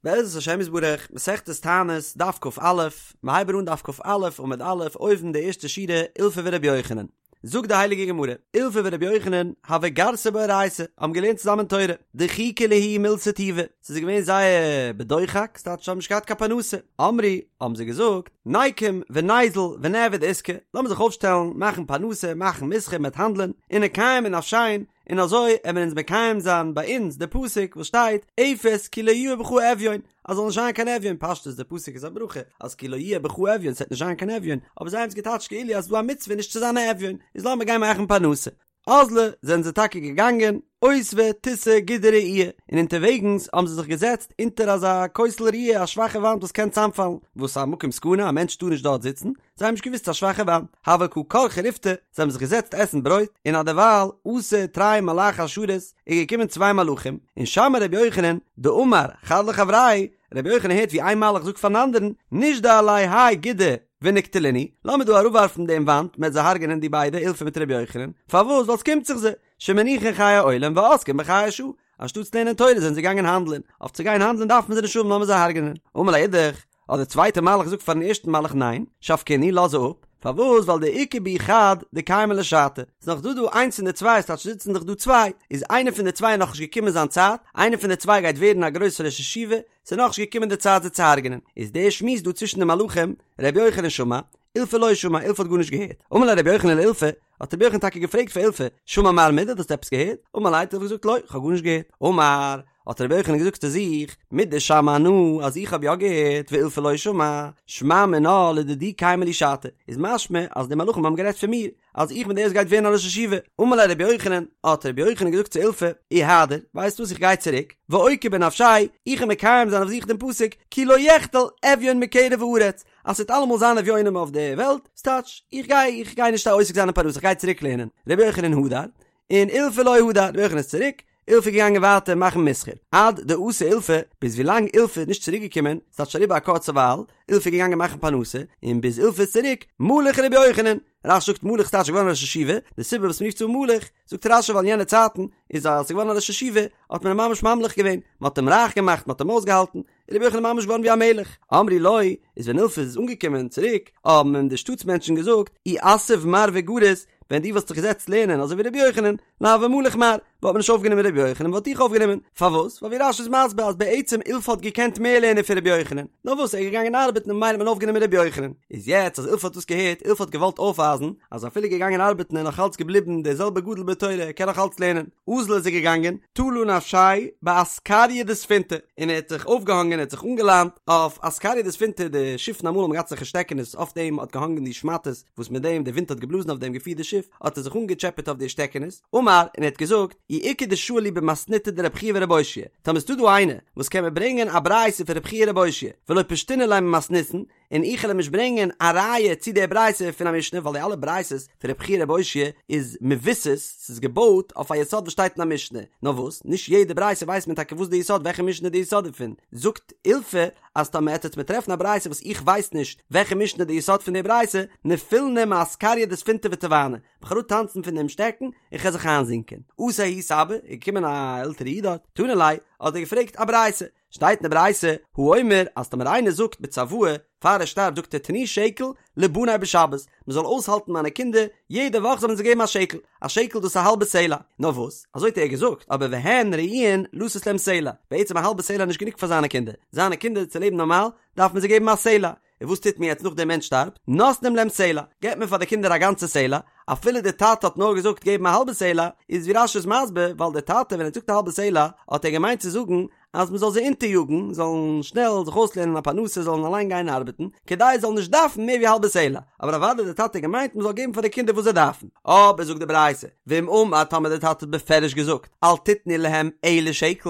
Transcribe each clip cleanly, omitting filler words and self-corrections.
בעזרת השם יתברך, מסכת תענית, דף כ"א, מ'הייבן אן דף כ"א עמוד א', אויבן די ערשטע שורה, אילפא ורבי יוחנן. זאגט די הייליגע גמרא, אילפא ורבי יוחנן, הוו גרסי באורייתא, האבן געלערנט צוזאמען תורה, דחיקא להו מילתא טובא, ס'איז געווען זייער בדוחק, ס'טייטש זיי האבן נישט געהאט קיין פרנסה, אמרי, האבן זיי געזאגט, ניקום וניזיל ונעביד עיסקא, לאמיר זיך אויפשטעלן, מאכן פרנסה, מאכן מסחר, מ'עט האנדלען, ונקיים בנפשין, און אזוי עמער אונז מקיים זיין ביי אונז די פסוק וואס שטייט אפס כי לא יהיה בך אביון אז זאל נישט זיין קיין אביון פשטות די פסוק איז א ברכה אז כי לא יהיה בך אביון ס'וועט נישט זיין קיין אביון אבער זיי האבן עס געטייטשט כאילו אז ס'דא א מצוה נישט צו זיין א אביון איז לאמיר גיין מאכן פרנסה אזלו זענען זיי טאקע געגאנגען אותבו תותי גודא רעיעא און אונטערוועגנס האבן זיי זיך געזעצט אונטער אזא כותל רעוע א שוואכע וואנט וואס קען צאמפאלן וואס א מקום סכנה א מענטש טאר נישט דארט זיצן זיי האבן נישט געוואוסט ס'איז א שוואכע וואנט, הוו קא כרכי ריפתא, זיי האבן זיך געזעצט עסן ברויט, און אדערווייל אתו תרי מלאכי השרת, איז געקומען צוויי מלאכים, און שמע רבי יוחנן, דאמר חד לחבריה, רבי יוחנן הערט ווי איין מלאך זאגט פארן אנדערן, נישדי עלייהו האי גודא ונקטלינהו, לאמיר דא אראפווארפן דעם וואנט, מ'עט זיי הרג'נען די ביידע, אילפא מיט רבי יוחנן, פארוואס? ווייל ס'קומט זיך זיי, שמניחין חיי עולם ועוסקין בחיי שעה, אנשטאטס לערנען תורה זענען זיי געגאנגען האנדלען, אויף צו גיין האנדלען דארף מען זיי נישט האבן לאמיר זיי הרג'נען. אמר ליה אידך, האט דער צווייטער מלאך געזאגט פארן ערשטן מלאך ניין, שבקינהו, לאז זיי אפ, פארוואס ווייל דאיכא בהו חד דקיימא ליה שעתא, ס'איז נאך דא דא איינס פון די צוויי, ס'טייטש זיצן דאך דא צוויי, איז איינער פון די צוויי נאכנישט געקומען זיין צייט, איינער פון די צוויי גייט ווערן א גרויסער ראש ישיבה, ס'איז נאכנישט געקומען די צייט זיי צו הרג'נען, איז דער שמועס דא צווישן די מלאכים, ר' יוחנן שמע, אילפא לא שמע, אילפא האט גארנישט געהערט, אמר ליה ר' יוחנן לאילפא, האט רבי יוחנן טאקע געפרעגט פאר אילפא, שמע מר מידי, האסט עפעס געהערט? אמר ליה האט אילפא געזאגט לא, כ'האב גארנישט געהערט. אמר, האט רבי יוחנן געזאגט צו זיך, מדשמע אנא, אז איך האב יא געהערט, ואילפא לא שמע, שמע מינה לדידי קיימא לי שעתא, איז משמע אז די מלאכים האבן גערעדט פון מיר, אז איך בין דער וואס גייט ווערן א ראש ישיבה. אמר ליה רבי יוחנן, האט רבי יוחנן געזאגט צו אילפא, איהדר, ווייסט וואס איך גיי צוריק, ואוקי בנפשאי, איך וועל מקיים זיין אויף זיך דעם פסוק, כי לא יחדל אביון מקרב הארץ, אז ס'וועט אלעמאל זיין אביונים אויף די וועלט, ס'טייטש, איך גיי, איך גיי נישט עוסק זיין אין פרנסה, איך גיי צוריק לערנען. רבי יוחנן הדר, און אילפא לא הדר, רבי יוחנן איז צוריק, אילפא איז געגאנגען ווייטער מאכן מסחר. עד דאתא אילפא, ביז ווילאנג אילפא איז נישט צוריק געקומען, ס'טייטש אריבער א קורצע ווייל, אילפא איז געגאנגען מאכן פרנסה, און ביז אילפא איז צוריק, מלך רבי יוחנן. רש"י זאגט מלך ס'טייטש געווארן ראש ישיבה, די סיבה וואס מ'רופט אים מלך, זאגט רש"י ווייל אין יענע צייטן איז אז ס'איז געווארן א ראש ישיבה, האט מען אים ממש ממליך געווען, מ'האט אים רייך געמאכט, מ'האט אים אויסגעהאלטן, איז רבי יוחנן ממש געווארן ווי א מלך. אמרו לו, איז ווען אילפא איז אנגעקומען צוריק, האבן אים די שטאטס מענטשן געזאגט, אי אתיב מר וגריס, ווען דו וואלסט זיך געזעצט לערנען אזוי ווי רבי יוחנן, לא הוה מליך מר, וואלט מען נישט אויפגענומען רבי יוחנן, מ'וואלט דיך אויפגענומען. פארוואס? ווייל ווי רש"י איז מסביר אז בעצם אילפא האט געקענט מער לערנען פון רבי יוחנן, נאר וואס ער איז געגאנגען ארבעטן און ממילא האט מען אויפגענומען רבי יוחנן. איז יעצט אז אילפא האט דאס געהערט, אילפא האט געוואלט אויפווייזן אז אפילו געגאנגען ארבעטן איז נאך אלץ געבליבן דער זעלבער גדול בתורה, ער קען נאך אלץ לערנען. אזל איז ער געגאנגען, תלא נפשיה באסקריא דספינתא, און ער האט זיך אויפגעהאנגען, ער האט זיך אנגעליינט אויף אסקריא דספינתא, די שיפן אמאל האבן געהאט אזעלכע שטעקענעס, אויף דעם האט געהאנגען די שמאטעס, וואס מיט דעם די ווינט האט געבלאזן אויף דעם געפירט די שיף, האט ער זיך אנגעטשעפעט אויף די שטעקענעס, אמר, און ער האט געזאגט, אי איכא דשאיל לי במתניתא דרב חייא ורב אושעיא, טאמער ס'דא דא איינער, וואס קען מיר ברענגען א ברייתא פון רב חייא ורב אושעיא, ולא פשטינא ליה ממתניתין, און איך וועל אים נישט ברענגען א ראיה צו די ברייתא פון א משנה ווייל די אלע ברייתות פון רב חייא רב אושעיא איז מבוסס, ס'איז געבויט אויף א יסוד וואס שטייט אין א משנה, נאר וואס, נישט יעדע ברייתא ווייסט מען טאקע וואס די יסוד וועלכע משנה איז די יסוד דערפון, זאגט אילפא אז טאמער עט עטץ מיר טרעפן א ברייתא וואס איך ווייס נישט וועלכע משנה איז די יסוד פון די ברייתא, נפילנא מאסקריא דספינתא וטבענא, כ'וועל אראפטאנצן פון דעם שטעקן און כ'וועל זיך איינזינקען. אתא ההוא סבא, איז געקומען א עלטערע איד דארט, תנא ליה, האט ער געפרעגט א ברייתא, שטייט אין די ברייתא, האומר, אז טאמער איינער זאגט בצוואה, פאר ער שטארבט זאגט ער תנו שקל לבני בשבת, מען זאל אויסהאלטן מיינע קינדער, יעדע וואך זאל מען זיי געבן א שקל, א שקל דאס איז א האלבע סלע, נאר וואס, אזוי האט ער געזאגט, אבער והן ראויין לתת להם סלע, בעצם א האלבע סלע איז נישט גענוג פאר זיינע קינדער, זיינע קינדער צו לעבן נארמאל, דארף מען זיי געבן א סלע, און וואס טוט מען יעצט נאך דער מענטש שטארבט? נותנים להם סלע, געבט מען פאר די קינדער א גאנצע סלע, אפילו דער טאטע האט נאר געזאגט געבן א האלבע סלע, איז ווי רש"י איז מסביר, ווייל דער טאטע ווען ער האט געזאגט א האלבע סלע, האט ער געמיינט צו זאגן אז מען זאל זיי אונטעריאגן, זאלן שנעל זיך אויסלערנען א פרנסה, זאלן אליין גיין ארבעטן, כדי זיי זאלן נישט דארפן מער ווי א האלבע סלע, אבער אוודאי דער טאטע האט געמיינט מען זאל געבן פאר די קינדער וואס זיי דארפן. אבער זאגט די ברייתא, ואם אמר טאמער דער טאטע האט בפירוש געזאגט, אל תתנו להם אלא שקל,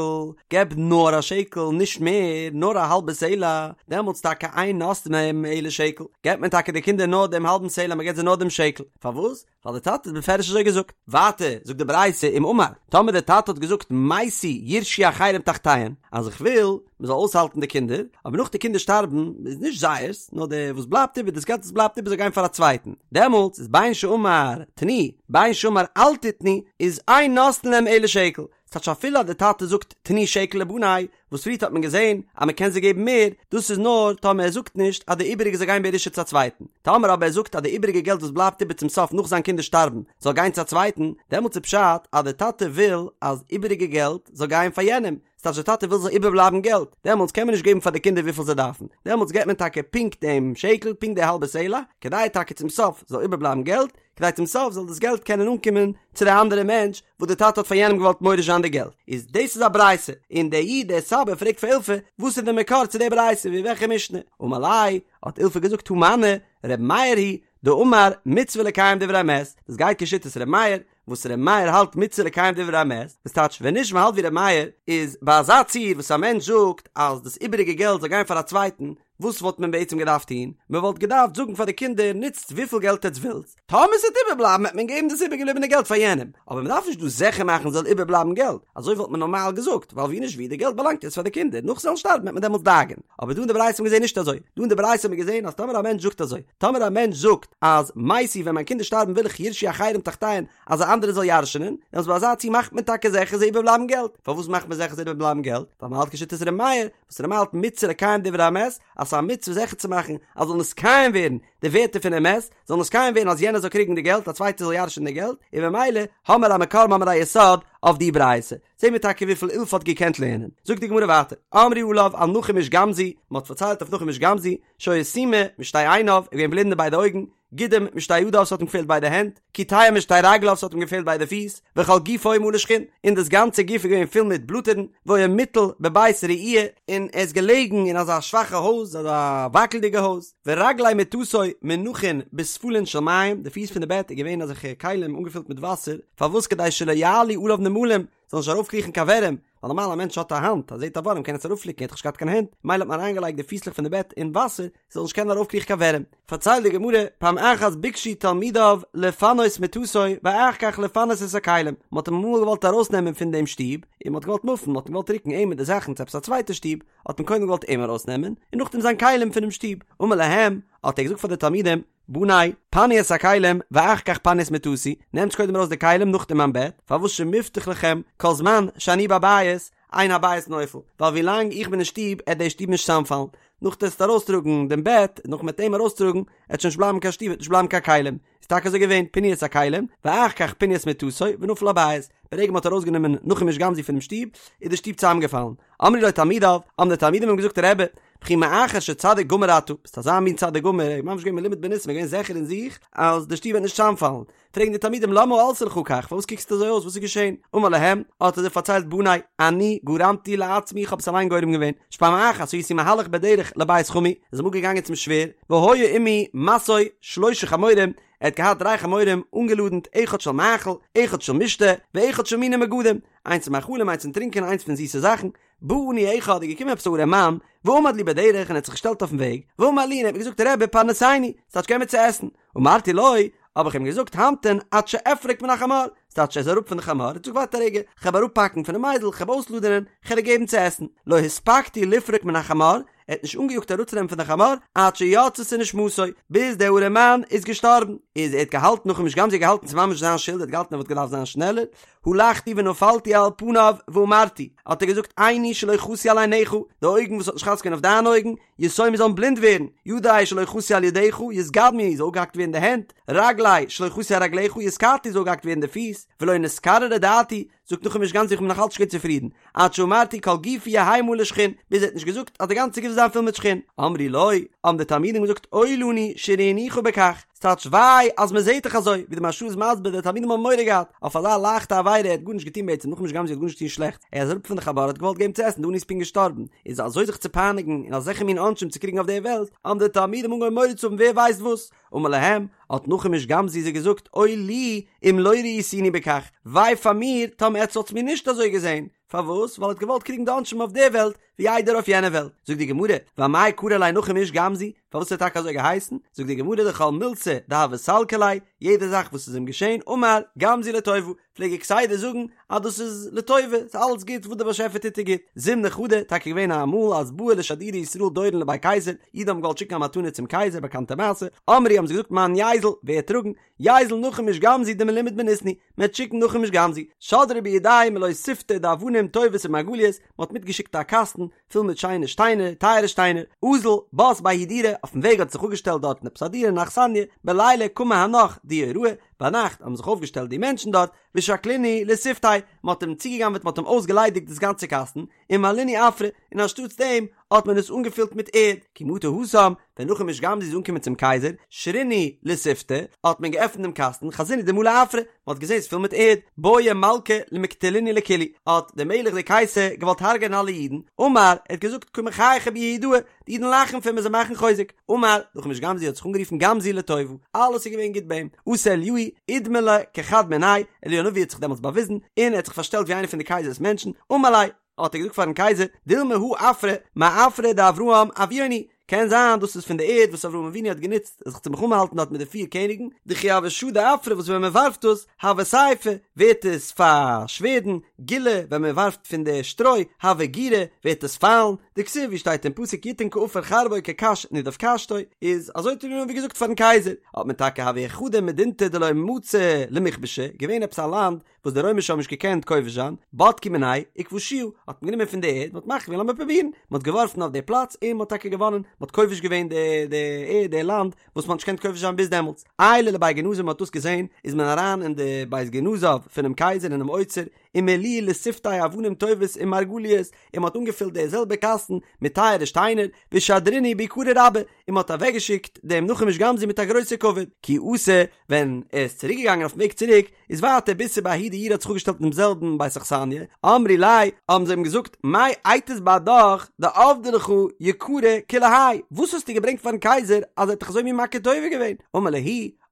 געב נאר א שקל, נישט מער, נאר א האלבע סלע, דעמאלטס טאקע אין נותנין להם אלא שקל, געבט מען טאקע די קינדער נאר דעם האלבן סלע, מען געבט זיי נאר דעם שקל, פארוואס? ווייל דער טאטע האט בפירוש אזוי געזאגט. ווייטער זאגט די ברייתא אם אמר, טאמער דער טאטע האט געזאגט מתו יירשו אחרים תחתיהם, אז איך וויל מען זאל אויסהאלטן די קינדער, אבער נאך די קינדער שטארבן איז נישט זייערס, נאר די וואס בלייבט איבער, דאס געלט וואס בלייבט איבער זאל גיין פאר א צווייטן, דעמאלטס איז בין שאמר תנו, בין שאמר אל תתנו, איז אין נותנין להם אלא שקל. ס'טייטש אפילו אז די טאטע זאגט תנו שקל לבני, וואס פריערט האט מען געזען אז מען קען זיי געבן מער, דאס איז נאר טאמער ער זאגט נישט אז די איבעריגע זאל גיין בירושה צו א צווייטן, טאמער אבער ער זאגט אז די איבעריגע געלט וואס בלייבט איבער צום סוף נאך זיין קינדער שטארבן זאל גיין צו א צווייטן, דעמאלטס איז פשט אז די טאטע וויל אז איבעריגע געלט זאל גיין פאר יענעם, ס'טייטש די טאטע וויל ס'זאל איבערבלייבן געלט, דעמאלטס קען מען נישט געבן פאר די קינדער וויפיל זיי דארפן, דעמאלטס געבט מען טאקע פונקט דעם שקל, פונקט די האלבע סלע, כדי טאקע צום סוף זאל איבערבלייבן געלט, כדי צום סוף זאל דאס געלט קענען אנקומען צו די אנדערע מענטש וואס די טאטע האט פאר יענעם געוואלט מוריש זיין די געלט, איז דאס איז א ברייתא, און דער איד דער סבא פרעגט פאר אילפא וואס איז די מקור צו די ברייתא ווי וועלכע משנה, אמר ליה, האט אילפא געזאגט הא מני, ר' מאיר היא דאמר מצוה לקיים דברי המת, דאס גייט כשיטת ר' מאיר, וואס ר' מאיר האלט מצוה לקיים דברי המת, וואס טייטש ווען נישט מ'האלט ווי ר' מאיר, איז ביי אזא ציור וואס א מענטש זאגט אז דאס איבעריגע געלט זאל גיין פאר א צווייטן, וואס וואלט מען בעצם געדארפט טון? מען וואלט געדארפט זאגן פאר די קינדער נוצט וויפיל געלט עטץ ווילטס, טאמער ס'וועט איבערבלייבן וועט מען געבן דאס איבערגעבליבענע געלט פאר יענעם, אבער מען דארף נישט דא זיכער מאכן ס'זאל איבערבלייבן געלט, אזוי וואלט מען נארמאל געזאגט, ווייל ווי נישט ווי די געלט באלאנגט יעצט פאר די קינדער, נאך זיי וועלן שטארבן וועט מען דעמאלטס דאגה'ן. אבער דא אין די ברייתא האט מען געזען נישט אזוי, דא אין די ברייתא האט מען געזען אז טאמער א מענטש זאגט אזוי, טאמער א מענטש זאגט אז מתי ווען מיין קינדער שטארבן וויל איך יירשו אחרים תחתיהן אז א אנדערער זאל ירש'נען, דעמאלטס ביי אזא ציור מאכט מען טאקע זיכער ס'זאל איבערבלייבן געלט, פארוואס מאכט מען זיכער ס'זאל איבערבלייבן געלט? ווייל מען האלט כשיטת ר' מאיר, וואס ר' מאיר האלט מצוה לקיים דברי המת, אז ס'איז א מצוה זיכער צו מאכן אז זאל נתקיים ווערן די ווערטער פונעם מת, זאל נתקיים ווערן אז יענער זאל קריגן די געלט, א צווייטער זאל ירש'נען די געלט, און במילא האמער א מקור האמער א יסוד אויף די ברייתא. זעהן מיר טאקע וויפיל אילפא האט געקענט לערנען. זאגט די גמרא ווייטער, אמרו עליו על נחום איש גם זו, מען האט פארציילט אויף נחום איש גם זו, שהיה סומא משתי עיניו, ער איז געווען בלינד אין ביידע אויגן, גידם משתי ידיו ס'האט אים געפעלט ביידע הענט, קיטע משתי רגליו ס'האט אים געפעלט ביידע פיס, וכל גופו מלא שחין, און דאס גאנצע גוף איז געווען פול מיט בלאטערן, והיה מוטל בבית רעוע, און ער איז געלעגן אין אזא שוואכע הויז, אזא וואקלדיגע הויז, ורגלי מטתו מונחין בספלין של מים, די פיס פון די בעט איז געווען אזעלכע כלים אנגעפילט מיט וואסער, פארוואס כדי שלא יעלו עליו נמלים, זאל נישט ארויפקריכן קיין ווערים, ווייל נארמאל א מענטש האט א האנט, אז ער זעט א ווארעם קען עס אראפפליקן, ער האט דאך נישט געהאט קיין הענט, מילא האט מען אריינגעלייגט די פיסלעך פון די בעט אין וואסער, ס'זאל נישט קענען ארויפקריכן קיין ווערים. פארציילט די גמרא, פעם אחת ביקשו תלמידיו לפנות מטתו ואחר כך לפנות את הכלים, מען האט אים אמאל געוואלט ארויסנעמען פון דעם שטוב, און מען האט געוואלט מופן, מען האט אים געוואלט רוקן אים מיט די זאכן צו עפעס א צווייטע שטוב, האט מען קודם געוואלט אים ארויסנעמען, און נאכדעם זיין כלים פונעם שטוב. אמר להם, האט ער געזאגט פאר די תלמידים, בני, פנו את הכלים, ואחר כך פנו את מטתי, נעמטס קודם ארויס די כלים נאכדעם מיין בעט, פארוואס שמובטח לכם, כל זמן שאני בבית, אין הבית נופל, ווייל ווי לאנג איך בין אין שטוב עט די שטוב נישט צוזאמפאלן, נאך דו עסט ארויסטראגן דעם בעט, נאך מ'עט אים ארויסטראגן, עט שוין נישט בלייבן קיין שטוב, עט נישט בלייבן קיין כלים, איז טאקע אזוי געווען, פינו את הכלים, ואחר כך פינו את מטתו, ונפל הבית, ברגע מ'האט ארויסגענומען נחום איש גם זו פונעם שטוב, איז די שטוב צוזאמגעפאלן. אמרו לו תלמידיו, האבן די תלמידים אים געזאגט רבי, וכי מאחר שצדיק גמור אתה, ביסט אזא מין צדיק גמור, ער איז ממש געווען מלומד בניסים, ער איז געווען זיכער אין זיך אז די שטוב וועט נישט צוזאמפאלן, פרעגן די תלמידים למה עלתה לך כך, פארוואס קוקסטו אזוי אויס, וואס איז געשען? אמר להם, האט ער זיי פארציילט בני, אני גרמתי לעצמי, איך האב עס אליין גורם געווען, שפעם אחת הייתי מהלך בדרך לבית חמי, איז אמאל געגאנגען צום שווער, והיה עמי משוי שלשה חמורים, ער האט געהאט דריי חמורים אנגעלאדנט, אחד של מאכל, אחד של משתה, ואחד של מיני מגדים, איינס פון מאכלים, איינס פון טרינקען, איינס פון זיסע זאכן, בא עני אחד איז געקומען עפעס א ארעמאן, ועמד לי בדרך און האט זיך געשטעלט אויפן וועג, ואמר לי און ער האט מיר געזאגט רבי פרנסני, ס'טייטש געב מיר צו עסן, אמרתי לו, האב איך אים געזאגט המתן עד שאפרוק מן החמור, ס'טייטש ער איז אראפ פון די חמור, האט געזאגט ווארט א רגע, כ'העב אראפפאקן פונעם אייזל, כ'העב אויסלאדענען, כ'על דיר געבן צו עסן, לא הספקתי לפרוק מן החמור, ער האט נישט אנגעיאגט אראפצונעמען פון די חמור, עד שיצתה נשמתו, ביז דער ארעמאן איז געשטארבן, איז ער האט געהאלטן נחום איש גם זו האט געהאלטן ס'איז ממש זיין שולד, ער האט געהאלטן ער וואלט געדארפט זיין שנעלער, הלכתי ונפלתי על פניו ואמרתי, האט ער געזאגט עיני שלא חסו על עיניך, די אויגן וואס האט נישט חס געווען אויף דיינע אויגן, יסומו זאלן בלינד ווערן, ידי שלא חסו על ידיך, יתגדמו זאל אפגעהאקט ווערן די הענט, רגלי שלא חסו על רגליך, יתקטעו זאל אפגעהאקט ווערן די פיס, ולא נתקררה דעתי, זאגט נחום איש גם זו איך בין נאך אלץ נישט געווען צופרידן, עד שאמרתי כל גופי יהא מלא שחין, ביז ער האט נישט געזאגט אז די גאנצע גוף זאל זיין פול מיט שחין. אמרו לו, האבן די תלמידים געזאגט אוי לנו שראינוך בכך, ס'טייטש וויי אז מען זעט דיך אזוי, ווי די מהרש"א איז מסביר די תלמידים האבן מורא געהאט אויף אזא לייכטע עבירה, ער האט גארנישט געטון בעצם, נחום איש גם זו האט גארנישט געטון שלעכטס, ער איז אראפ פון די חמור האט געוואלט געבן צו עסן, די עני איז פונקט געשטארבן, איז אזוי זיך צו פייניגן און אזעלכע מין עונשים צו קריגן אויף דער וועלט, האבן די תלמידים אנגעהויבן מורא צו האבן ווער ווייסט וואס, אמר להם, האט נחום איש גם זו זיי געזאגט, אוי לי אם לא ראיתוני בכך, וויי פאר מיר טאמער עטץ וואלטס מיר נישט אזוי געזען, פארוואס? ווייל ער האט געוואלט קריגן די עונשים אויף דער וועלט, ווי איידער אויף יענע וועלט. זאגט די גמרא, ואמאי קרו ליה נחום איש גם זו, פארוואס האט ער טאקע אזוי געהייסן? זאגט די גמרא דכל מילתא דהוה סלקא ליה, יעדע זאך וואס איז אים געשען, אמר, גם זו לטובה, פלעג ער כסדר זאגן אז דאס איז לטובה, ס'איז אלעס גוט, וואס דער באשעפער טוט איז גוט. זימנא חדא, טאקע געווען א אמאל אז בעו לשדורי ישראל דורון לבי קיסר, אידן האבן געוואלט שיקן א מתנה צום קייזער, באקאנטע מעשה, אמרי האבן זיי געזאגט מאן ייזיל, ווער וועט טראגן, ייזיל נחום איש גם זו דמלומד בניסן הוא, מען וועט שיקן נחום איש גם זו, שדרו בידיה מלא סיפטא דאבנים טובות ומרגליות, מען האט מיטגעשיקט א קאסטן פול מיט שיינע שטיינער, טייערע שטיינער, אזל, בת בההיא דירה, אויפן וועג האט זיך אפגעשטעלט דארטן עפעס א דירה אן אכסניא, בליליא קמו הנך דיוראי, ביינאכט האבן זיך אויפגעשטעלט די מענטשן דארט, ושקלינהו לסיפתיה, מען האט אים צוגעגנבעט מען האט אים אויסגעליידיגט דאס גאנצע קאסטן, ומלינהו עפרא, און אנשטאטס דעם האט מען עס אנגעפילט מיט ערד, כי מטו התם, ווען נחום איש גם זו איז אנגעקומען צום קייזער, שרינהו לסיפתא, האט מען געעפנט דעם קאסטן, חזינהו דמלא עפרא, מען האט געזען ס'איז פול מיט ערד, בעי מלכא למקטלינהו לכולהו, האט דער מלך דער קייסער געוואלט הרג'ענען אלע אידן, אמר, ער האט געזאגט קא מחייכי בי יהודאי, די אידן לאכן פון מיר זיי מאכן חוזק, אמר, נחום איש גם זו האט זיך אנגערופן גם זו לטובה, אלעס איז געווען גוט ביי אים, אתא אליהו, אידמי ליה כחד מינייהו, אליהו הנביא האט זיך דעמאלטס באוויזן, און ער האט זיך פארשטעלט ווי איינער פון די קייזער'ס מענטשן, אמר ליה, האט ער געזאגט פארן קייזער, דילמא הא עפרא, מעפרא דאברהם אבוהון הוא, קען זיין דאס איז פון די ערד וואס אברהם אבינו האט גענוצט זיך צו מלחמה האלטן דארט מיט די פיר קעניגן, דכי הוה שדי עפרא וואס ווען מען ווארפט דאס, הוה סיפא, ווערט עס פאר שווערדן, גילא, ווען מען ווארפט פון די שטרוי, הוה גירא, ווערט עס פיילן, דכתיב ווי שטייט אין פסוק יתן כעפר חרבו כקש נדף קשתו, איז אזוי האט אליהו הנביא געזאגט פארן קייזער, האט מען טאקע הוה חדא מדינתא דלא מצו למכבשה, געווען עפעס א לאנד וואס די רוימישע האבן נישט געקענט כובש זיין, בדקו מיניה וכבשוה, האט מען גענומען פון די ערד, מען האט מחליט געווען לאמיר פרובירן, מען האט געווארפן אויף די פלאץ און מען האט טאקע געוואנען, מען האט כובש געווען די די ערד די לאנד וואס מען האט נישט געקענט כובש זיין ביז דעמאלטס. עיילו לבי גנזא מען האט דאס געזען, איז מען אריין אין די בית גנזיו פונעם קייזער אינעם אוצר, ומלו לסיפתיה אבנים טובות ומרגליות, און מען האט אנגעפילט די זעלבע קאסטן מיט טייערע שטיינער, ושדרינהו ביקרא רבה, און מען האט אוועקגעשיקט דעם נחום איש גם זו מיט א גרויסע כבוד, כי אתא, ווען ער איז צוריק געגאנגען אויפן וועג צוריק, איז ווייטער ביתו בההוא דיורא האט זיך אפגעשטעלט אינעם זעלבן בית אכסניא, אמרי ליה, האבן זיי אים געזאגט, מאי אייתית בהדך דעבדי לך יקרא כולי האי, וואס האסטו געברענגט פארן קייזער אז ער האט דיך אזוי מין מכיר טובה געווען? אמר להו,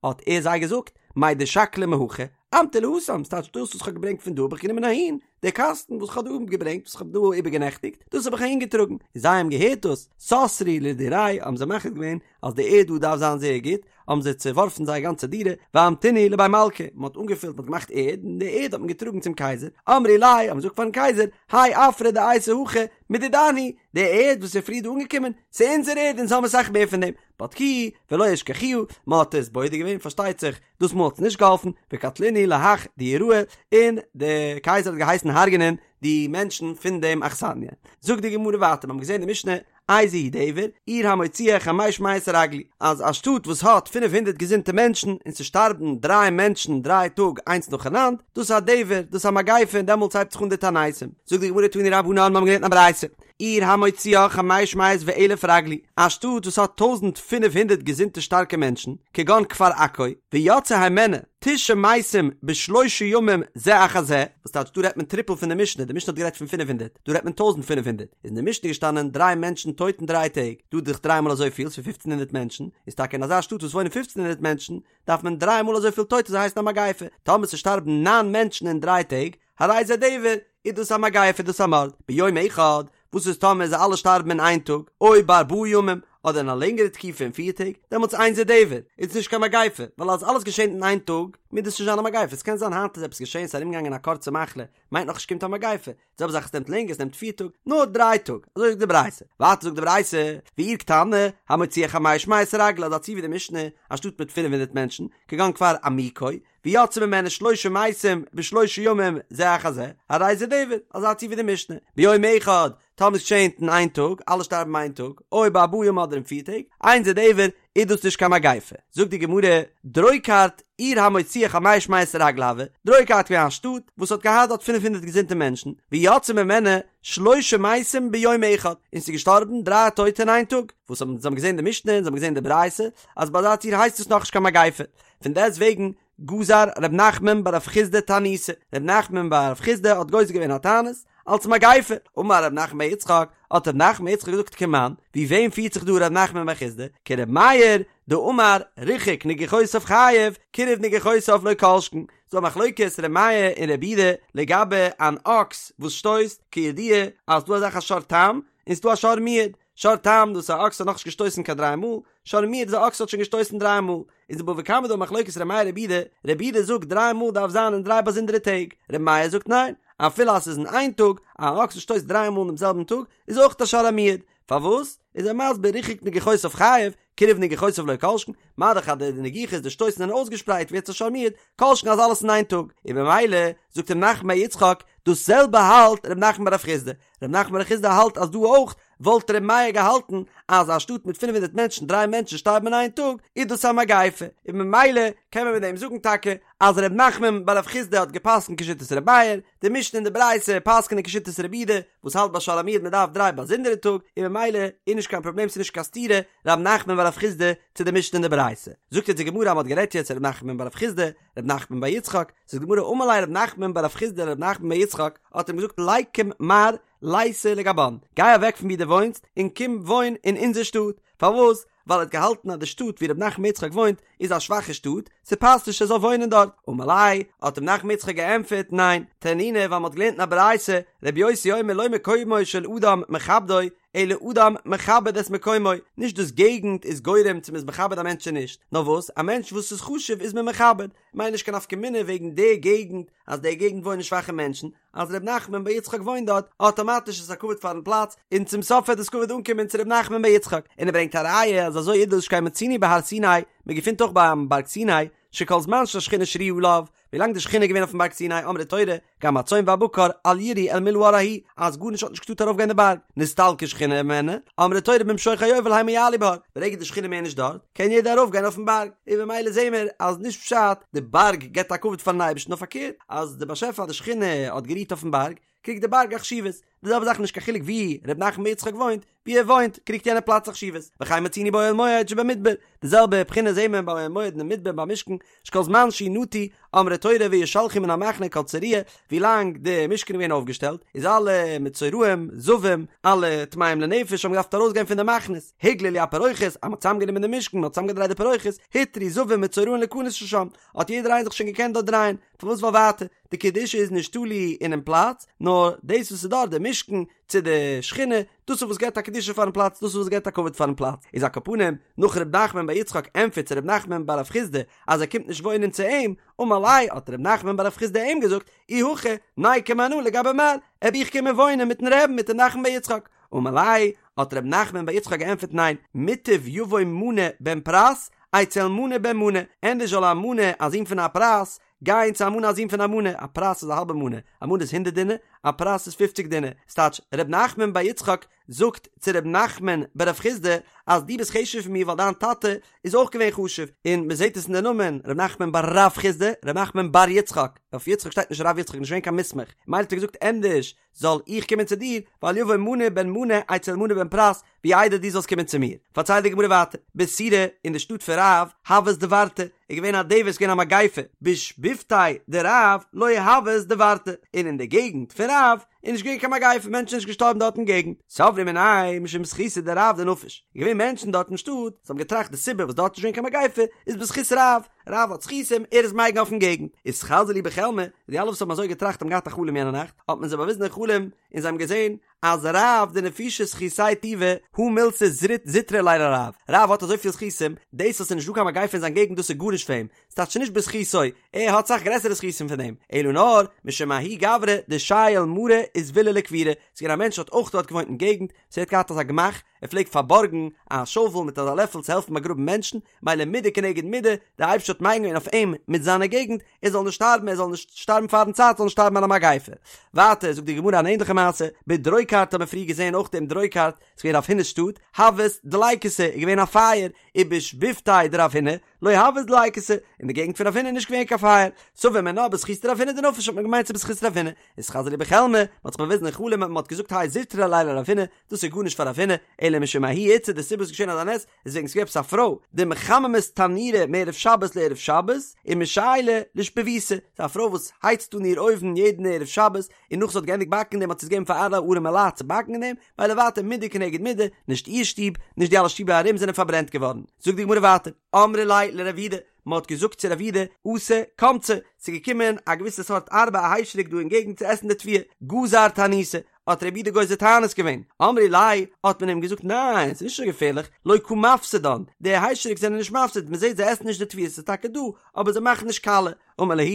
האט ער זיי געזאגט, מאי דשקלי מהכא, אמטו להתם, ס'טייטש דאס וואס כ'האב געברענגט פון דא האב איך גענומען אהין, דער קאסטן וואס כ'האב דא געברענגט, וואס כ'האב דא איבערגענעכטיגט, דאס האב איך אהין געטראגן. און זיי האבן געהערט דאס, סתרו לדירייהו, האבן זיי מחליט געווען אז די ערד דא דארף זיין זייער גוט, האבן זיי צעווארפן זייער גאנצע דירה, ואמטינהו לבי מלכא, מען האט אנגעפילט, מען האט געמאכט ערד, און די ערד האט מען געטראגן צום קייזער, אמרי ליה, האבן זיי געזאגט פארן קייזער, האי עפרא דאייתי הכא, מדידן הוא, די ערד וואס איז פריער דא אנגעקומען, ס'איז אונזער ערד, אונז האבן אסאך מער פון דעם. בדקוה ולא אשכחוה, מען האט עס בודק געווען, פארשטייט זיך, דאס מאל האט עס נישט געהאלפן, וקטלינהו להך דיוראי, און דער קייזער האט געהייסן הרג'נען די מענטשן פון דעם אכסניא. זאגט די גמרא ווייטער, מיר האבן געזען די משנה, איזהו דבר, עיר המוציאה חמש מאות רגלי, אז א שטאט וואס האט פינף הונדערט געזונטע מענטשן, און ס'שטארבן דריי מענטשן דריי טאג איינס נאכאנאנד, דאס איז א דבר, דאס איז א מגיפה און דעמאלטס הייבט זיך אן די תעניתים. זאגט די גמרא תנו רבנן, מיר האבן געלערנט א ברייתא, עיר המוציאה חמש מאות ואלף רגלי, א שטאט וואס האט טויזנט פינף הונדערט געזונטע שטארקע מענטשן, כגון כפר עכו, ויצאו הימנה תשעה מתים בשלושה ימים זה אחר זה, וואס טייטש דא רעדט מען טריפל פון די משנה, די משנה האט גערעדט פון פינף הונדערט, דא רעדט מען טויזנט פינף הונדערט, איז אין די משנה געשטאנען דריי מענטשן טויט אין דריי טעג, דא דאך דריי מאל אזויפיל, ס'איז פופצן הונדערט מענטשן, איז טאקע אין אזא שטאט וואס וואוינען פופצן הונדערט מענטשן, דארף מען דריי מאל אזויפיל טויטע זאל הייסן א מגיפה, טאמער ס'שטארבן ניין מענטשן אין דריי טעג, הרי זה דבר, איז דאס א מגיפה איז דאס א מארד, ביום אחד, וואס איז טאמער זיי אלע שטארבן אין איין טאג, או בארבעה ימים, אדער אין א לענגערע תקופה פון פיר טעג, דעמאלטס אין זה דבר, איז עס נישט קיין מגיפה, ווייל אז אלעס געשענט אין איין טאג, מוז דאס נישט זיין א מגיפה, עס קען זיין היינט איז עפעס געשען, ס'איז ארומגעגאנגען א קורצע מחלה, מיינט נאכנישט קומט א מגיפה, די זעלבע זאך עס נעמט לענגער, עס נעמט פיר טאג, נאר דריי טאג, אזוי זאגט די ברייתא, ווייטער זאגט די ברייתא, ועיר קטנה, המוציאה חמש מאות רגלי, אזא ציור ווי די משנה, א שטאט מיט פינף הונדערט מענטשן, כגון כפר עמיקו, ויצאו ממנה שלשה מתים בשלושה ימים זה אחר זה, הרי זה דבר, אזא ציור ווי די משנה, ביום אחד, טאמער עס געשענט אין איין טאג, אלע שטארבן איין טאג, או בארבעה ימים אדער אין פיר טעג, אין זה דבר, איז דאס נישט קיין מגיפה. זאגט די גמרא, דרוקרת עיר המוציאה חמש מאות רגלי הואי, דרוקרת געווען א שטאט וואס האט געהאט דארט פינף הונדערט געזונטע מענטשן, ויצאו ממנה שלשה מתים ביום אחד, און ס'איז געשטארבן דריי טויטע אין איין טאג, וואס האבן זיי האבן געזען די משנה און זיי האבן געזען די ברייתא, אז ביי אזא ציור הייסט עס נאכנישט קיין מגיפה, פון דעסט וועגן גזר ר' נחמן בר רב חסדא תעניתא, ר' נחמן בר רב חסדא האט גוזר געווען א תענית אלס מגיפה, אמר ר' נחמן בר יצחק, האט ר' נחמן בר יצחק געזאגט כמאן, ווי וועם פירט זיך דא ר' נחמן בר חסדא, כר' מאיר דאמר ריחק נגיחותיו חייב, קירב נגיחותיו לא כל שכן, ס'דא א מחלוקת ר' מאיר און ר' יהודה לגבי אן אקס וואס שטויסט, כידוע אז ס'דא אזא זאך א שור תם, און ס'דא א שור מועד, שור תם דאס איז א אקס האט נאכנישט געשטויסן קיין דריי מאל, שור מועד איז א אקס האט שוין געשטויסן דריי מאל, איז אין בבא קמא דא מחלוקת ר' מאיר רבי יהודה, רבי יהודה זאגט דריי מאל דארף זיין אין דריי באזונדערע טעג, ר' מאיר זאגט ניין, אפילו אז ס'איז אין איין טאג, א אקס וואס שטויסט דריי מאל אינעם זעלבן טאג איז אויך א שור המועד, פארוואס? איז ער מסביר ריחק נגיחותיו חייב, קירב נגיחותיו לא כל שכן, מה דאך אז די נגיחות די שטויסן זענען אויסגעשפרייט ווערט עס א שור מועד, כל שכן אז אלעס אין איין טאג, און במילא זאגט ר' נחמן בר יצחק דאס זעלבע האלט ר' נחמן בר רב חסדא, ר' נחמן בר רב חסדא האלט אז דא אויך וואלט ר' מאיר געהאלטן אז א שטאט מיט פינף הונדערט מענטשן דריי מענטשן שטארבן אין איין טאג איז דאס א מגיפה, און ממילא קען מען מיט דעם זאגן טאקע אז ר' נחמן בר רב חסדא האט געפסקנט כשיטת ר' מאיר, די משנה און די ברייתא פסק'נען כשיטת רבי יהודה וואס האלט ביי שור המועד מען דארף דריי באזונדערע טאג און ממילא איז נישט קיין פראבלעם ס'איז נישט קיין סתירה ר' נחמן בר רב חסדא צו די משנה און די ברייתא. זאגט יעצט די גמרא אז מ'האט גערעדט יעצט ר' נחמן בר רב חסדא ר' נחמן בר יצחק, זאגט די גמרא אמר ליה ר' נחמן בר רב חסדא לר' נחמן בר יצחק האט אים געזאגט ליקום מר ליתי לגבן, גיי אוועק פון ווי דו וואוינסט און קום וואוין אין אונזער שטאט, פארוואס? ווייל ער האט געהאלטן אז די שטאט ווי ר' נחמן בר יצחק וואוינט איז א שוואכע שטאט, ס'פאסט נישט ער זאל וואוינען דארט. אמר ליה, האט אים נחמן בר יצחק געענטפערט, ניין, תנינא ווייל מ'האט געלערנט אין א ברייתא, רבי יוסי אומר לא מקומו של אדם מכבדו, אלא אדם מכבד את מקומו, נישט דאס געגנט איז גורם צו מ'איז מכבד א מענטש צו נישט, נאר וואס, א מענטש וואס איז חשוב איז מען מכבד, מיינט נישט קיין נפקא מינה וועגן די געגנט, אז די געגנט וואוינען שוואכע מענטשן, אז ר' נחמן בר יצחק וואוינט דארט, אטאמאטיש איז א כבוד פארן פלאץ, און צום סוף וועט דאס כבוד אנקומען צו ר' נחמן בר יצחק, און ער ברענגט א ראיה אז אזוי איז דאס שכן מצינו בהר סיני, מען געפינט אויך ביים בארג סיני, שכל זמן שהשכינה שרויה עליו, ווילאנג די שכינה איז געווען אויפן בארג סיני אמרה תורה, גם הצאן והבקר אל ירעו אל מול ההר ההוא, אז גארנישט האט נישט געטארט ארויפגיין די בארג, נסתלקה שכינה הימנו, אמרה תורה במשוך היובל המה יעלו בהר, ברגע די שכינה מער נישט דארט, קען יעדער ארויפגיין אויפן בארג, און במילא זעהן מיר אז נישט פשט די בארג געבט א כבוד פארן אייבערשטן נאר פארקערט אז די באשעפער אז די שכינה האט גערוהט אויפן בארג קריגט די בארג א חשיבות, די זעלבע זאך נישט קיין חילוק ווי ר' נחמן בר יצחק וואוינט, ווי ער וואוינט קריגט יענע פלאץ א חשיבות, וכן מצינו באוהל מועד שבמדבר, די זעלבע בחינה זעהן מיר ביי אוהל מועד אין די מדבר ביים משכן, שכל זמן שהוא נטוי, אמרה תורה וישלחו מן המחנה כל צרוע, ווי לאנג די משכן איז געווען אויפגעשטעלט, איז אלע מצורעים, זבים, אלע טמאים לנפש האבן געדארפט ארויסגיין פון די מחנות, הוגללו הפרוכת, אז מען האט צוזאמגענומען די משכן, מען האט צוזאמגעדרייט די פרוכת, הותרו זבים ומצורעים להכנס לשם, האט יעדער איינער זיך שוין געקענט דארט דרייען, פארוואס ווייל ווייטער, די קדושה איז נישט תלוי אינעם פלאץ, נאר דאס וואס איז דארט, די משכן, צו די שכינה, דאס איז וואס געבט א קדושה פארן פלאץ, דאס איז וואס געבט א כבוד פארן פלאץ. איז על כל פנים, נאך ר' נחמן בר יצחק ענטפערט צו ר' נחמן בר רב חסדא אז ער קומט נישט וואוינען צו אים, אמר ליה, האט ר' נחמן בר רב חסדא אים געזאגט, אי הכי, ניקום אנא לגבי מר, וועל איך קומען וואוינען מיטן רעבן מיט ר' נחמן בר יצחק. אמר ליה, האט ר' נחמן בר יצחק געענטפערט ניין, מוטב יבוא מנה בן פרס, אצל מנה בן מנה, ענדערש זאל א מנה, א זון פון א פרס, גיין צו א מנה א זון פון א מנה, א פרס איז א האלבע מנה, א מנה איז הונדערט דינר, א פרס איז פופציג דינר, ס'טייטש ר' נחמן בר יצחק זאגט צו ר' נחמן בר רב חסדא אז דו ביסט חשוב'ער פון מיר ווייל דיין טאטע איז אויך געווען חשוב, און מ'זעט עס אין די נאמען ר' נחמן בר רב חסדא, ר' נחמן בר יצחק, אויף יצחק שטייט נישט רב יצחק נישט געווען קיין מוסמך, מילא האט ער געזאגט ענדערש זאל איך קומען צו דיר, ואל יבוא מנה בן מנה אצל מנה בן פרס, ווי איידער דו זאלסט קומען צו מיר. פארציילט די גמרא ווייטער, בסורא, אין די שטאט פון רב, הוות דברתא, איז געווען א דבר, ס'איז געווען א מגיפה, בשיבבותיה דרב לא הוות דברתא, און אין די געגנט פון רב איז נישט געווען קיין מגיפה, מענטשן זענען נישט געשטארבן דארט אין געגנט, סברי מיניה משום זכותא דרב דנפיש, איז געווען מענטשן דארט אין שטאט, וואס האבן געטראכט די סיבה וואס דארט איז נישט געווען קיין מגיפה איז בזכות רב, רב האט זכותים, ער איז מגין אויפן געגנט. אתחזי להו בחלמא, די אלע וואס האבן אזוי געטראכט האבן געהאט א חלום יענע נאכט, האט מען זיי באוויזן אין חלום, און זיי האבן געזען אז רב דנפישי זכותיה טובא, הא מילתא זוטרא ליה לרב, רב האט אזויפיל זכותים, דאס אז ס'איז נישט דא קיין מגיפה אין זיין געגנט דאס איז גארנישט פאר אים, ס'טייטש נישט בזכותו, ער האט סאך גרעסערע זכותים פון דעם, אלא נאר, משום ההוא גברא דשייל מרא וזבילא לקבורה, ס'איז געווען א מענטש האט אויך דארט געוואוינט אין געגנט, ס'ער האט געהאט אזא גמח, ער פלעגט פארבארגן א שאוול מיט אזא לעפל צו העלפן באגראבן מענטשן, מילא מידה כנגד מידה, דער אייבערשטער האט מגין געווען אויף אים מיט זיינע געגנט, ער זאל נישט שטארבן, ער זאל נישט שטארבן פארן צייט, זאל נישט שטארבן אין א מגיפה. ווייטער זאגט די גמרא אן ענדליכע מעשה, בדרוקרת האט מען פריער געזען אויך דעם דרוקרת, ס'איז געווען רב הונא'ס שטאט, הוות דליקתא, איז געווען א פייער, ובשיבבותיה דרב הונא, לא הוות דליקתא, אין די געגנט פון רב הונא איז נישט געווען קיין פייער, סבור מינה בזכותא דרב הונא דנפיש האט מען געמיינט ס'איז בזכות רב הונא, אתחזי להו בחלמא, מען האט זיך באוויזן אין חלום און מען האט געזאגט האי זוטרא ליה לרב הונא, דאס איז גארנישט פאר רב הונא, אלא משום ההיא איתתא די סיבה וואס איז געשען אזא נס, איז וועגן ס'געווען עפעס א פרוי, דמחממת תנורא מערב שבת לערב שבת, ומשיילא לשיבבותה, ס'איז א פרוי וואס הייצט אן איר אויוון יעדן ערב שבת, און נאך זי האט געענדיגט באקן אין דעם האט זי עס געגעבן פאר אלע ארעמע לייט צו באקן אין דעם, מילא ווייטער מידה כנגד מידה, נישט איר שטוב, נישט די אלע שטיבער ארום זענען פארברענט געווארן. זאגט די גמרא ווייטער, אמרי ליה לרב יהודה, מען האט געזאגט צו רב יהודה, אתא קמצי, ס'איז געקומען א געוויסע סארט ארבה א היישעריק דא אין געגנט צו עסן די תבואה, גזר תעניתא, האט רבי יהודה גוזר תענית געווען, אמרי ליה, האט מען אים געזאגט ניין, ס'איז נישט אזוי געפערליך, לא קא מפסדן, די היישעריק זענען נישט מפסיד, מ'זעט זיי עסן נישט די תבואה, ס'איז טאקע דא, אבער זיי מאכן נישט קאליע, אמר להו,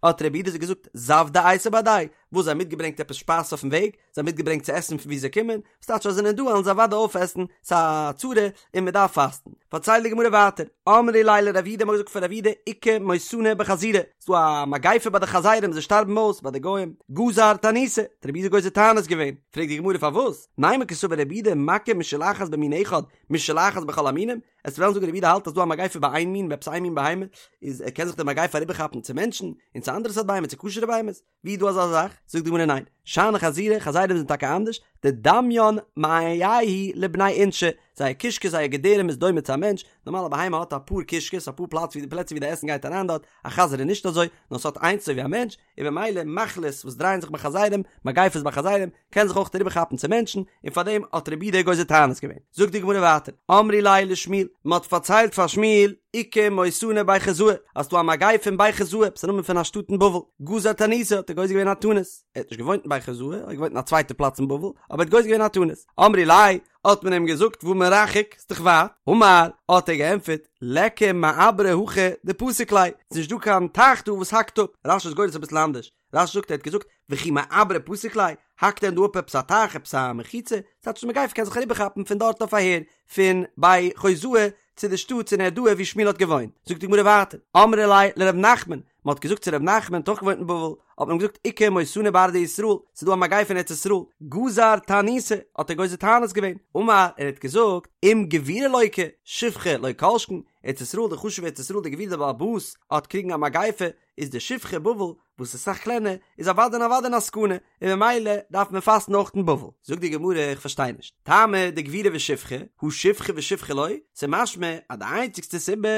האט רבי יהודה זיי געזאגט, זוודא אייתו בהדייהו, וואס זיי האבן מיטגעברענגט עפעס שפייז אויפן וועג, זיי האבן מיטגעברענגט צו עסן פון וואו זיי קומען, וואס טייטש אז זיי זענען דא וועלן זיי אוודאי אויפעסן, ס'איז א צרה און מען דארף פאסטן. פארציילט די גמרא ווייטער, אמרי ליה לרב יהודה, מ'האט געזאגט פאר רב יהודה, איכא מותנא בחזירי, ס'איז דא א מגיפה ביי די חזירים, זיי שטארבן אויס ביי די גוים, גזר תעניתא, האט רב יהודה גוזר תענית געווען, פרעגט די גמרא פארוואס, נימא קסבר רב יהודה מכה משולחת במין אחד, משולחת בכל המינים, וועסט וועלן זאגן רב יהודה האלט אז דא א מגיפה ביי איין מין ביי עפעס איין מין בהמה, איז קען זיך די מגיפה אריבערכאפן צו מענטשן, און צו אנדערע סארט בהמות, צו כשר'ע בהמות. ווי איז דא אזא זאך? זאגט די גמרא ניין, שאני חזירי, חזירים זענען טאקע אנדערש, דדמיין מעייהו לבני אינשי, זייער קישקע זייער געדערים איז דומה צו א מענטש, נארמאל א בהמה האט אפאר קישקעס אפאר פלאץ ווי פלעצער ווי די עסן גייט אריין דארט, א חזיר איז נישט אזוי, נאר ס'האט איינס אזוי ווי א מענטש, און במילא מחלות וואס דרייען זיך ביי חזירים, מגיפות ביי חזירים, קען זיך אויך אריבער כאפן צו מענטשן, און פאר דעם האט רב יהודה גוזר תענית געווען. זאגט די גמרא ווייטער, אמרי ליה לשמואל, מען האט פארציילט פאר שמואל, איכא מותנא בי חוזאי, אז ס'דא א מגיפה אין בי חוזאי, עפעס א נאמען פון א שטאט אין בבל, גזר תעניתא, האט ער גוזר געווען א תענית, ער האט נישט געוואוינט אין בי חוזאי, ער האט געוואוינט אין א צווייטע פלאץ אין בבל, אבער ער האט גוזר געווען א תענית. אמרי ליה, האט מען אים געזאגט, והא מרחק, ס'איז דאך ווייט. אמר, האט ער געענטפערט, ליכא מעברא הכא דפסיק ליה, ס'איז נישט דא קיין טייך דא וואס האקט אפ. רש"י איז גורס אביסל אנדערש, רש"י זאגט ער האט געזאגט וכי מעברא פסיק ליה, האקט דען דא אפ עפעס א טייך עפעס א מחיצה, ס'טייטש די מגיפה קען זיך אריבערכאפן פון דארט אויף אהער, פון בי חוזאי צו די שטאט צו נהרדעא וואו שמואל האט געוואוינט, זאגט די גמרא ווייטער, אמרי ליה לר' נחמן, מען האט געזאגט צו ר' נחמן האט אויך געוואוינט אין בבל, האט מען אים געזאגט איכא מותנא בארעא דישראל, ס'איז דא א מגיפה אין ארץ ישראל, גזר תעניתא, האט ער גוזר תענית געווען, אמר, ער האט געזאגט, אם גבירא לוקה, שפחה לא כל שכן, ארץ ישראל די חשובע ארץ ישראל די גביר די בעל הבית האט קריגן א מגיפה, איז די שפחה בבל וואס איז אסאך קלענער איז אוודאי און אוודאי אין א סכנה און ממילא דארף מען פאסטן אויך אין בבל. זאגט די גמרא איך פארשטיי נישט, טעמא דגבירא ושפחה, הא שפחה ושפחה לא, ס'איז משמע אז די איינציגסטע סיבה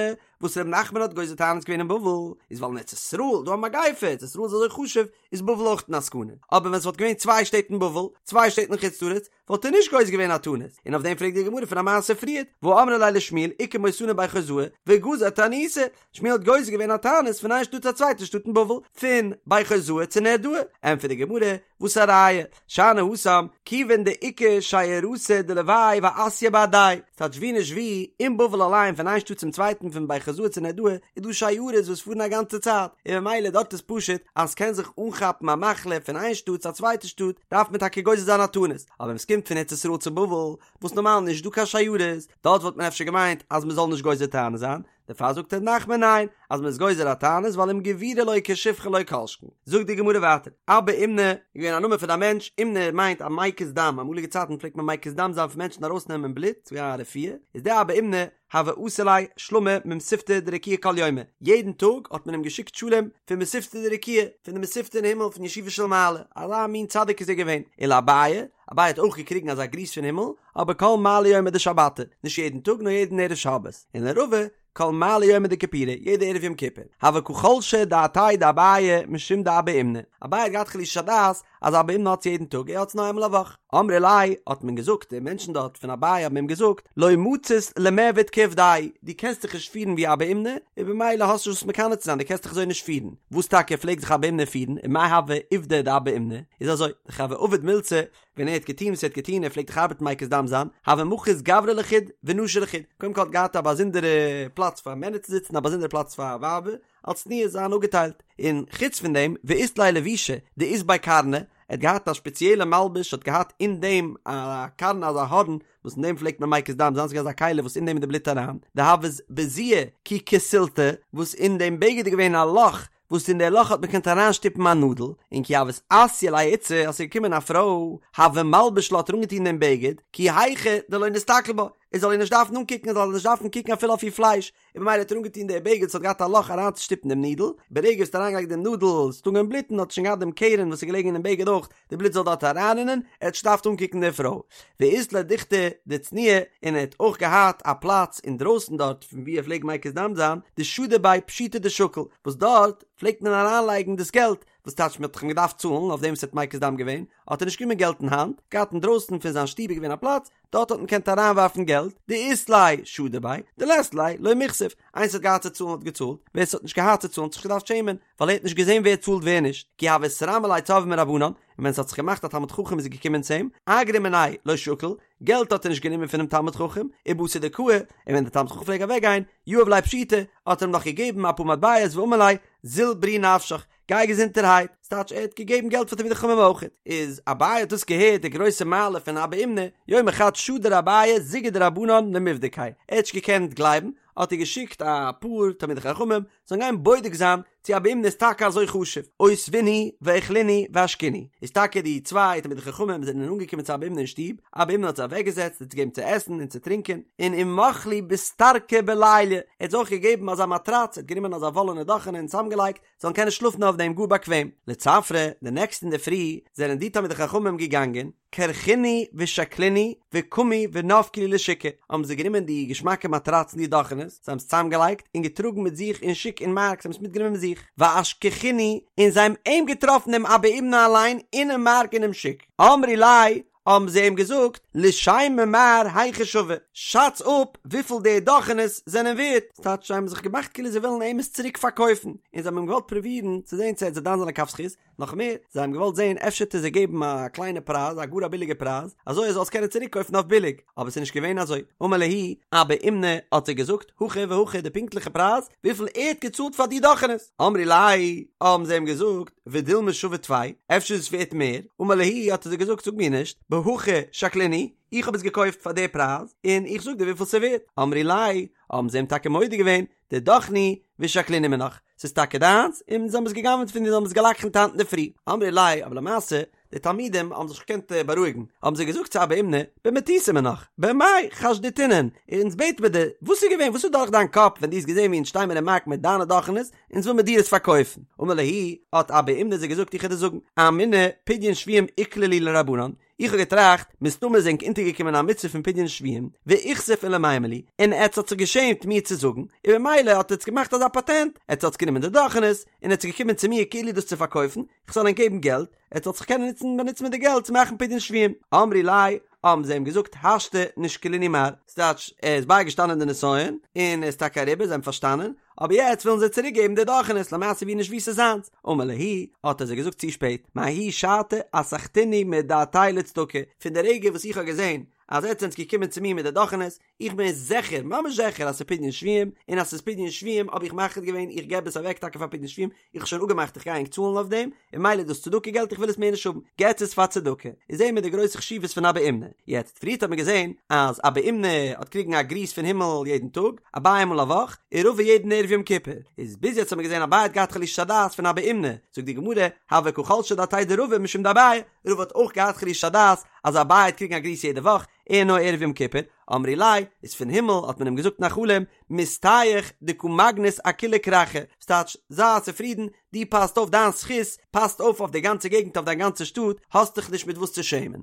וואס ר' נחמן האט גוזר תענית געווען אין בבל איז ווייל אין ארץ ישראל איז דא א מגיפה, ארץ ישראל איז אזוי חשוב איז בבל אויך אין א סכנה, אבער ווען ס'וואלט געווען צוויי שטעט אין בבל, צוויי שטעט אין חוץ לארץ, וואלט ער נישט גוזר געווען א תענית, און אויף דעם פרעגט די גמרא פון א מעשה פריערט, והא אמרי ליה לשמואל איכא מותנא בי חוזאי וגזר תעניתא, שמואל האט גוזר געווען א תענית פון איין שטאט צו א צווייטע שטאט אין בבל, פון בי חוזאי צו נהרדעא, ענטפערט די גמרא, וואס א ראיה, שאני התם, כיוון דאיכא שיירתא דלוואי ואתיא בהדייהו, ס'טייטש ווי נישט ווי, אין בבל אליין פון איין שטאט צום צווייטן פון בי חוזאי צו נהרדעא איז דא שיירות וואס פארן א גאנצע צייט, און ממילא דארט איז פשוט אז ס'קען זיך אנכאפן א מחלה פון איין שטאט צו א צווייטע שטאט, דארף מען טאקע גוזר זיין א תענית, אבער ווען ס'קומט פון ארץ ישראל צו בבל, וואס נארמאל נישט דא קיין שיירות, דארט וואלט מען אפשר געמיינט אז מ'זאל נישט גוזר תענית זיין, דערפאר זאגט ר' נחמן ניין, אז מ'איז גוזר א תענית ווייל אם גבירא לוקה שפחה לא כל שכן. זאגט די גמרא ווייטער, אבא אומנא איז געווען א נאמען פון א מענטש, אומנא מיינט א מקיז דם, אמאליגע צייטן פלעגט מען מקיז דם זיין פון מענטשן ארויסנעמען בלוט, ס'איז געווען א רפואה, איז דער אבא אומנא הוה אתי ליה שלמא ממתיבתא דרקיעא כל יומא, יעדן טאג האט מען אים געשיקט שלום פון מתיבתא דרקיעא, פון די מתיבתא אין הימל פון ישיבה של מעלה, אזא מין צדיק איז ער געווען, ולאביי, אביי האט אויך געקריגן אזא גריס פון הימל, אבער כל מעלי יומא דשבתא, נישט יעדן טאג נאר יעדן ערב שבת, און לרבא, כל מעלי יומא דכיפורי, יעדע ערב יום כיפור, הוה קא חלשא דעתיה דאביי משום דאבא אומנא, אביי האט געהאט חלישת הדעת אז אבא אומנא האט עס יעדן טאג, ער האט עס נאר איינמאל א וואך. אמרי ליה, האט מען געזאגט, די מענטשן דארט פון אביי האבן אים געזאגט, לא מצית למעבד כעובדיה, דו קענסט דיך נישט פירן ווי אבא אומנא, און במילא האסטו נישט וואס מקנא צו זיין, דו קענסט דיך אזוי נישט פירן. וואס טאקע פלעגט זיך אבא אומנא פירן, ומאי הוה עובדא דאבא אומנא? איז אזוי, דכי הוה עביד מילתא, ווען ער האט געטון וואס ער האט געטון, ער פלעגט דאך ארבעטן מקיז דם זיין, הוה מחית גברי לחוד ונשי לחוד, קודם כל האט געהאט א באזונדערע פלאץ פאר מענער צו זיצן, א באזונדערע פלאץ פאר ווייבער, אלס צניעות זיין אפגעטיילט, און חוץ פון דעם, ואית ליה לבישא דאית ביה קרנא, ער האט געהאט א שפעציעלע מלבוש האט געהאט אין דעם א קרנא אזא הארן וואס אין דעם פלעגט מען מקיז דם זיין, ס'איז געווען אזא כלי וואס אין דעם איז די בלוט אריין, דהוות בזיעא כי כסילתא, וואס אין דעם בגד איז געווען א לאך וואס אין די לאך האט מען געקענט אריינשטופן א נאדל, און כי הוות אתיא ליה איתתא אז ס'איז געקומען א פרוי, הוה מלביש לה האט ער אנגעטון דעם בגד, כי היכי דלא נסתכל בה, ער זאל איר נישט דארפן אנקוקן, ער זאל נישט דארפן קוקן אפילו אויף איר פלייש, און במילא האט ער אנגעטון די בגד וואס האט געהאט א לאך אריינצושטופן דעם נידל, ברגע וואס ער האט אריינגעלייגט דעם נאדל, ס'האט אנגעהויבן בלוטן, האט ער שוין געהאט דעם קרן וואס איז געלעגן אינעם בגד אויך, די בלוט זאל דארט אריינרינען, ער האט נישט געדארפט אנקוקן די פרוי. ואית ליה דוכתא דצניעא, און ער האט אויך געהאט א פלאץ אינדרויסן דארט פון וואו ער פלעגט מקיז דם זיין, דשדי ביה פשיטא דשקיל, וואס דארט פלעגט מען אריינלייגן דאס געלט, וואס טייטש מען האט דאך אים געדארפט צאלן אויף דעם וואס ער האט מקיז דם געווען, האט ער נישט גענומען געלט אין האנט, געהאט אינדרויסן פון זיין שטוב איז געווען א פלאץ, דארט האט מען געקענט אריינווארפן געלט, דאית ליה שדי ביה, דלית ליה לא מיכסיף, איינער ס'האט געהאט צו צאלן האט געצאלט, ווער ס'האט נישט געהאט צו צאלן האט זיך נישט געדארפט שעמען, ווייל ער האט נישט געזען ווער צאלט ווער נישט, כי הוה אתרמי ליה צורבא מרבנן, און ווען ס'האט זיך געמאכט א תלמיד חכם איז געקומען צו אים, אגרא מיניה לא שקיל, געלט האט ער נישט גענומען פונעם תלמיד חכם, ובתר דקאי, און ווען דער תלמיד חכם פלעג אוועק גיין, יהב ליה פשיטי, האט ער אים נאך געגעבן אפאר מטבעות ואמר ליה, זיל בריא נפשך, גיי געזונטערהייט, ס'טייטש ער האט געגעבן געלט פאר תלמידי חכמים אויך. איז אביי האט דאס געהערט די גרויסע מעלה פון אבא אומנא, יומא חד שדר אביי זוגא דרבנן למיבדקיה, ער האט נישט געקענט גלייבן, האט ער געשיקט א פאר תלמידי חכמים זאלן גיין בודק זיין צו אבא אומנא איז טאקע אזוי חשוב, אותבינהו ואכלינהו ואשקינהו, איז טאקע די צוויי תלמידי חכמים זענען אנגעקומען צו אבא אומנא אין שטוב, אבא אומנא האט זיי אוועקגעזעצט זיי געגעבן צו עסן און צו טרינקען, און ומח להו ביסתרקא בליליא, ער האט זיי אויך געגעבן אזא מאטראץ, ער האט גענומען אזא וואלענע דאכענע און צוזאמגעלייגט, זאלן קענען שלאפן אויף דעם גאר באקוועם. לצפרא, די נעקסטע אינדערפרי זענען די תלמידי חכמים געגאנגען, כרכינהו ושקלינהו וקמו ונפקו להו לשוקא, האבן זיי גענומען די געשמאקע מאטראצן די דאכענעס, זיי האבן עס צוזאמגעלייגט און געטראגן מיט זיך אין שוק אין מארק, זיי האבן עס מיטגענומען מיט זיך, ואשכחינהו, און זיי האבן אים געטראפן דעם אבא אומנא אליין אינעם מארק אינעם שוק, אמרי ליה, האבן זיי אים געזאגט, לישיימיה מר היכי שוו, שאץ אפ וויפיל די דאכענעס זענען ווערט, ס'טייטש זיי האבן זיך געמאכט כאילו זיי ווילן אים עס צוריק פארקויפן, און זיי האבן אים געוואלט פרובירן צו זען צו ער וועט זיי דן זיין לכף זכות, נאך מער, זיי האבן געוואלט זען אפשר וועט ער זיי געבן א קליינע פרייז, א גאר א ביליגע פרייז, אזוי ער זאל עס קענען צוריק קויפן אויף ביליג, אבער ס'איז נישט געווען אזוי, אמר להו, אבא אומנא האט זיי געזאגט, הכי והכי די פונקטליכע פרייז, וויפיל ער האט געצאלט פאר די דאכענעס, אמרי ליה, האבן זיי אים געזאגט, ודילמא שווה טפי, אפשר איז עס ווערט מער, אמר להו, האט ער זיי געזאגט, זאג מיר נישט, בהכי שקלינהו, איך האב עס געקויפט פאר די פרייז, און איך זאג דיר וויפיל ס'איז ווערט, אמרי ליה, האבן זיי אים טאקע מודה געווען, דידך נינהו ושקלינהו מינך, ס'איז טאקע דיינס, און זיי האבן עס גע'גנב'ט פון דיר, זיי האבן עס גע'לקח'נט היינט אינדערפרי. אמרי ליה, אבער למעשה, די תלמידים האבן זיך נישט געקענט בארואיגן, האבן זיי געזאגט צו אבא אומנא, במטותא מינך, במאי חשדתינן, אונז בעט מיר דיר, וואס איז געווען, וואס איז דורך דיין קאפ ווען דו האסט געזען ווי אונז שטיי מיר אין מארק מיט דיינע דאכענעס, אונז וויל מיר דיר עס פארקויפן. אמר להו, האט אבא אומנא זיי געזאגט, איך וועל דיר זאגן, אמינא, פדיון שבויים איקלע להו לרבנן, איך האב געטראכט, מסתמא איז ענק אונטערגעקומען א מצוה פון פדיון שבויים, ואיכסיף למימר לי, און עטץ האט זיך געשעמט מיר צו זאגן, און במילא האט עטץ געמאכט אזא פאטענט, עטץ האטס גענומען די דאכענעס, און עטץ געקומען צו מיר כאילו דאס צו פארקויפן, איך זאל ענק געבן געלט, עטץ זאלט זיך קענען נוצן באנוצן מיט די געלט צו מאכן פדיון שבויים. אמרי ליה, האבן זיי אים געזאגט, השתא נשקלינהו מר, ס'טייטש, ער איז בייגעשטאנען די נסיון, און ער איז טאקע אריבער, זיי האבן פארשטאנען, אבער יעצט ווילן זיי צוריק געבן די דאכענעס למעשה ווי נישט ווי ס'איז זיינס, אמר להו, האט ער זיי געזאגט צו שפעט, מההיא שעתא אסחתינהו מדעתאי לצדקה, פון די רגע וואס איך האב געזען אז עטס זענטס געקומען צו מיר מיט די דאכענעס, איך בין זיכער, ממש זיכער אז ס'איז פדיון שבויים, און אז ס'איז פדיון שבויים האב איך מחליט געווען איך געב עס אוועק טאקע פאר פדיון שבויים, איך האב שוין אפגעמאכט איך גיי ענק צאלן אויף דעם, און ממילא איז דאס צדקה געלט איך וויל עס מער נישט האבן, געטס עס פאר צדקה, איז זעהן מיר די גרויסע חשיבות פון אבא אומנא. יעצט, פריערט האט מען געזעהן אז אבא אומנא האט קריגן א גריס פון הימל יעדן טאג, אביי איינמאל א וואך, און רבא יעדן ערב יום כיפור, איז ביז יעצט האט מען געזעהן אביי האט געהאט חלישת הדעת פון אבא אומנא, זאגט די גמרא, הוה קא חלשא דעתיה דרבא משום דאביי, רבא האט אויך געהאט חלישת הדעת אז אביי האט קריגן א גריס יעדע וואך, ער נאר ערב יום כיפור, אמרי ליה, איז פון הימל האט מען אים געזאגט אין א חלום, מסתייך דקא מגנית אכולא כרכא, ס'טייטש, זיי צופרידן, דו פאסט אויף דיין זכות, פאסט אויף אויף די גאנצע געגנט אויף דיין גאנצע שטאט, האסט דיך נישט מיט וואס צו שעמען.